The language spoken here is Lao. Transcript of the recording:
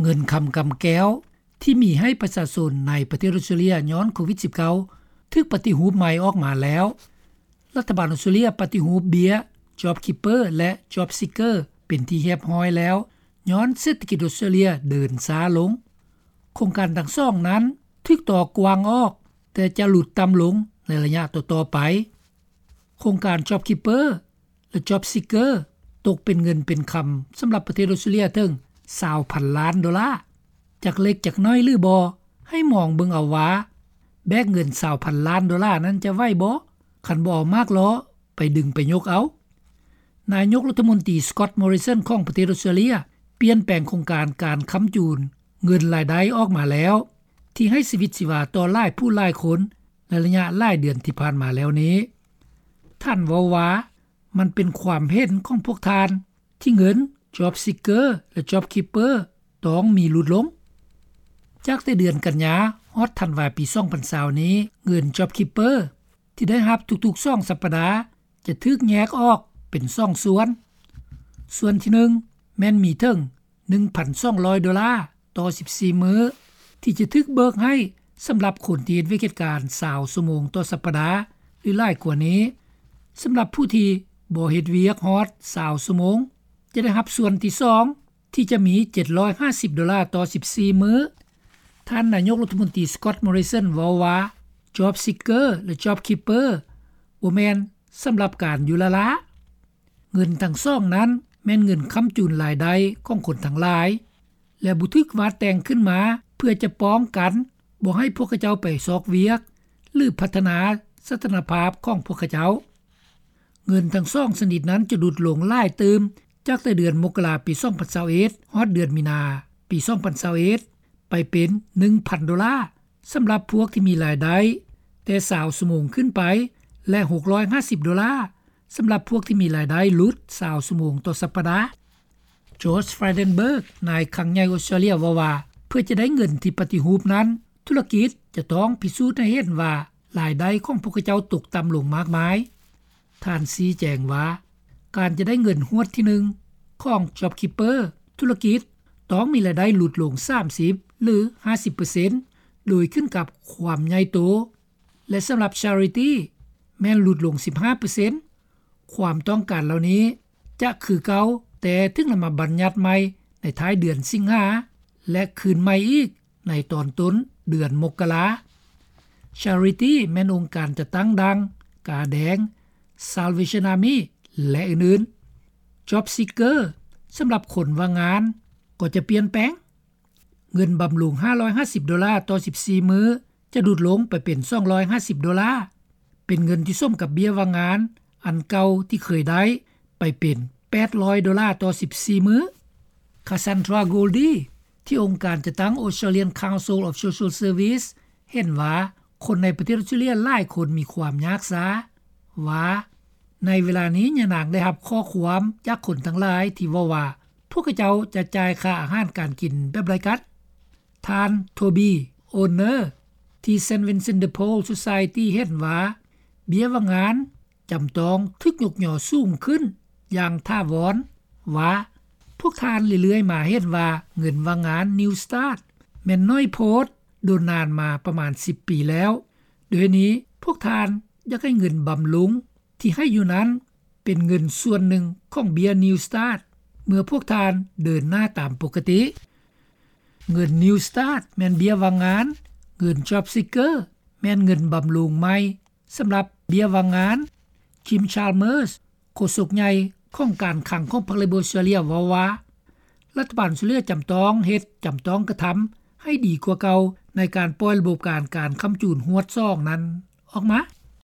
ເງິນຄຳກຳແກ້ວ ທີ່ມີໃຫ້ປະຊາຊົນໃນປະເທດອອສເຕຣເລັຽຍ້ອນໂຄວິດ-19 ຖືກປະຕິຮູບໃໝ່ອອກມາແລ້ວ. ລັດຖະບານອອສເຕຣເລັຽປະຕິຮູບເບ້ຍ JobKeeper ແລະ JobSeeker ເປັນທີ່ຮຽບຮ້ອຍແລ້ວ ຍ້ອນເສດຖະກິດອອສເຕຣເລັຽເດີນຊ້າລົງ. ໂຄງການທັງສອງນັ້ນຖືກຕໍ່ກວ້າງອອກ ແຕ່ຈະຫຼຸດຕ່ຳລົງໃນໄລຍະຕໍ່ໆໄປ. ໂຄງການ JobKeeper ແລະ JobSeeker ຕົກເປັນເງິນເປັນຄຳສຳລັບປະເທດອອສເຕຣເລັຽເຖິງ 20,000 ລ້ານໂດລາ. ຈັກເລັກຈັກນ້ອຍຫຼືບໍ່ ໃຫ້ມອງເບິ່ງເອົາວ່າ ແບກເງິນ 20,000 ລ້ານໂດລານັ້ນຈະໄຫວບໍ່ ຄັນບໍ່ເອົາໝາກລໍ້ໄປດຶງໄປຍົກເອົາ. ນາຍົກລັດຖະມົນຕີ Scott Morrison ຂອງປະເທດອອສເຕຣເລັຽ ປ່ຽນແປງໂຄງການການຄ້ຳຈູນເງິນລາຍໄດ້ອອກມາແລ້ວ ທີ່ໃຫ້ຊີວິດຊີວາຕໍ່ຫຼາຍຜູ້ຫຼາຍຄົນໃນໄລຍະຫຼາຍເດືອນທີ່ຜ່ານມາແລ້ວນີ້. ທ່ານເວົ້າວ່າ ມັນເປັນຄວາມເຫັນຂອງພວກທ່ານ ທີ່ເງິນ JobSeeker ແລະ JobKeeper ຕ້ອງມີຫຼຸດລົງ. ຈາກແຕ່ເດືອນກັນຍາຮອດທັນວາປີ 2020 ນີ້ ເງິນ JobKeeper ທີ່ໄດ້ຮັບທຸກໆສອງສັບປະດາ ຈະຖືກແຍກອອກເປັນສອງສ່ວນ. ສ່ວນທີໜຶ່ງ ແມ່ນມີເຖິງ ໜຶ່ງພັນສອງຮ້ອຍໂດລາຕໍ່ສິບສີ່ມື້ ທີ່ຈະຖືກເບີກໃຫ້ສຳລັບຄົນທີ່ເຮັດວຽກເຮັດການ 20 ຊົ່ວໂມງຕໍ່ສັບປະດາ ຫຼື ຫຼາຍກວ່ານີ້. ສຳລັບຜູ້ທີ່ບໍ່ເຮັດວຽກຮອດ 20 ຊົ່ວໂມງ ຈະໄດ້ຮັບສ່ວນທີສອງ ທີ່ຈະມີ 750 ໂດລາຕໍ່ສິບສີ່ມື້. ທ່ານນາຍົກລັດຖະມົນຕີ Scott Morrison ເວົ້າວ່າ JobSeeker ແລະ JobKeeper ບໍ່ແມ່ນສຳລັບການຢູ່ລ້າໆ. ເງິນທັງສອງນັ້ນແມ່ນເງິນຄ້ຳຈູນລາຍໄດ້ຂອງຄົນທັງຫຼາຍ ແລະ ບໍ່ຖືກວາດແຕ່ງຂຶ້ນມາເພື່ອຈະປ້ອງກັນບໍ່ໃຫ້ພວກເຂົາເຈົ້າໄປຊອກວຽກ ຫຼື ພັດທະນາສະຖານະພາບຂອງພວກເຂົາເຈົ້າ. ເງິນທັງສອງຊະນິດນັ້ນຈະຫຼຸດລົງຫຼາຍຕື່ມ ຈາກແຕ່ເດືອນມົກກະລາປີ 2021 ຮອດເດືອນມີນາປີ 2021 ໄປເປັນ ໜຶ່ງພັນໂດລາ ສຳລັບພວກທີ່ມີລາຍໄດ້ແຕ່ 20 ຊົ່ວໂມງຂຶ້ນໄປ ແລະ ຫົກຮ້ອຍຫ້າສິບໂດລາ ສຳລັບພວກທີ່ມີລາຍໄດ້ຫຼຸດ 20 ຊົ່ວໂມງຕໍ່ສັບປະດາ. George Frydenberg ນາຍຄັງໃຫຍ່ອອສເຕຣເລັຽເວົ້າວ່າ ເພື່ອຈະໄດ້ເງິນທີ່ປະຕິຮູບນັ້ນ ທຸລະກິດຈະຕ້ອງພິສູດໃຫ້ເຫັນວ່າລາຍໄດ້ຂອງພວກເຂົາເຈົ້າຕົກຕ່ຳລົງມາກມາຍ. ທ່ານຊີ້ແຈງວ່າ ການຈະໄດ້ເງິນຮວດທີໜຶ່ງຂອງ JobKeeper ທຸລະກິດຕ້ອງມີລາຍໄດ້ຫຼຸດລົງ ສາມສິບ ຫຼື ຫ້າສິບເປີເຊັນ ໂດຍຂຶ້ນກັບຄວາມໃຫຍ່ໂຕ ແລະ ສຳລັບ Charity ແມ່ນຫຼຸດລົງ ສິບຫ້າເປີເຊັນ. ຄວາມຕ້ອງການເຫຼົ່ານີ້ຈະຄືເກົ່າ ແຕ່ຖືກນຳມາບັນຍັດໃໝ່ໃນທ້າຍເດືອນສິງຫາ ແລະ ຄືນໃໝ່ອີກໃນຕອນຕົ້ນເດືອນມົກກະລາ. Charity ແມ່ນອົງການຈັດຕັ້ງດັ່ງ ກາແດງ, Salvation Army ແລະ ອື່ນໆ. JobSeeker ສຳລັບຄົນວ່າງງານກໍຈະປ່ຽນແປງ. ເງິນບຳລຸງ ຫ້າຮ້ອຍຫ້າສິບໂດລາຕໍ່ສິບສີ່ມື້ ຈະຫຼຸດລົງໄປເປັນ ສອງຮ້ອຍຫ້າສິບໂດລາ, ເປັນເງິນທີ່ສົມກັບເບ້ຍວ່າງງານອັນເກົ່າທີ່ເຄີຍໄດ້ໄປເປັນ ແປດຮ້ອຍໂດລາຕໍ່ສິບສີ່ມື້. Cassandra Goldie ທີ່ອົງການຈັດຕັ້ງ Australian Council of Social Service ເຫັນວ່າຄົນໃນປະເທດອອສເຕຣເລັຽຫຼາຍຄົນມີຄວາມຍາກຊ້າ ວ່າ ໃນເວລານີ້ຍານາງໄດ້ຮັບຂໍ້ຄວາມຈາກຄົນທັງຫຼາຍທີ່ເວົ້າວ່າ ພວກເຂົາເຈົ້າຈະຈ່າຍຄ່າອາຫານການກິນແບບໃດກັນ? ທ່ານ Toby Owner ທີ່ Saint Vincent de Paul Society ເຫັນວ່າ ເບ້ຍວ່າງງານຈຳຕ້ອງຖືກຍົກຍໍສູງຂຶ້ນຢ່າງຖາວອນ ວ່າ ພວກທ່ານເລື້ອຍໆມາເຫັນວ່າເງິນວ່າງງານ Newstart ແມ່ນໜ້ອຍໂພດ ດົນນານມາປະມານສິບປີແລ້ວ. ດ້ວຍນີ້ພວກທ່ານຢາກໃຫ້ເງິນບຳລຸງ ທີ່ໃຫ້ຢູ່ນັ້ນເປັນເງິນສ່ວນໜຶ່ງຂອງເບ້ຍ Newstart ເມື່ອພວກທ່ານເດີນໜ້າຕາມປົກກະຕິ. ເງິນ Newstart ແມ່ນເບ້ຍວ່າງງານ, ເງິນ JobSeeker ແມ່ນເງິນບຳລຸງໃໝ່ສຳລັບເບ້ຍວ່າງງານ. Jim Chalmers ໂຄສົກໃຫຍ່ຂອງການຄັງຂອງພັກ Labor Australia ເວົ້າວ່າ ລັດຖະບານອອສເຕຣເລັຽຈຳຕ້ອງເຮັດ, ຈຳຕ້ອງກະທຳໃຫ້ດີກວ່າເກົ່າ ໃນການປ່ອຍລະບົບການ, ການຄ້ຳຈູນຮວດສອງນັ້ນອອກມາ.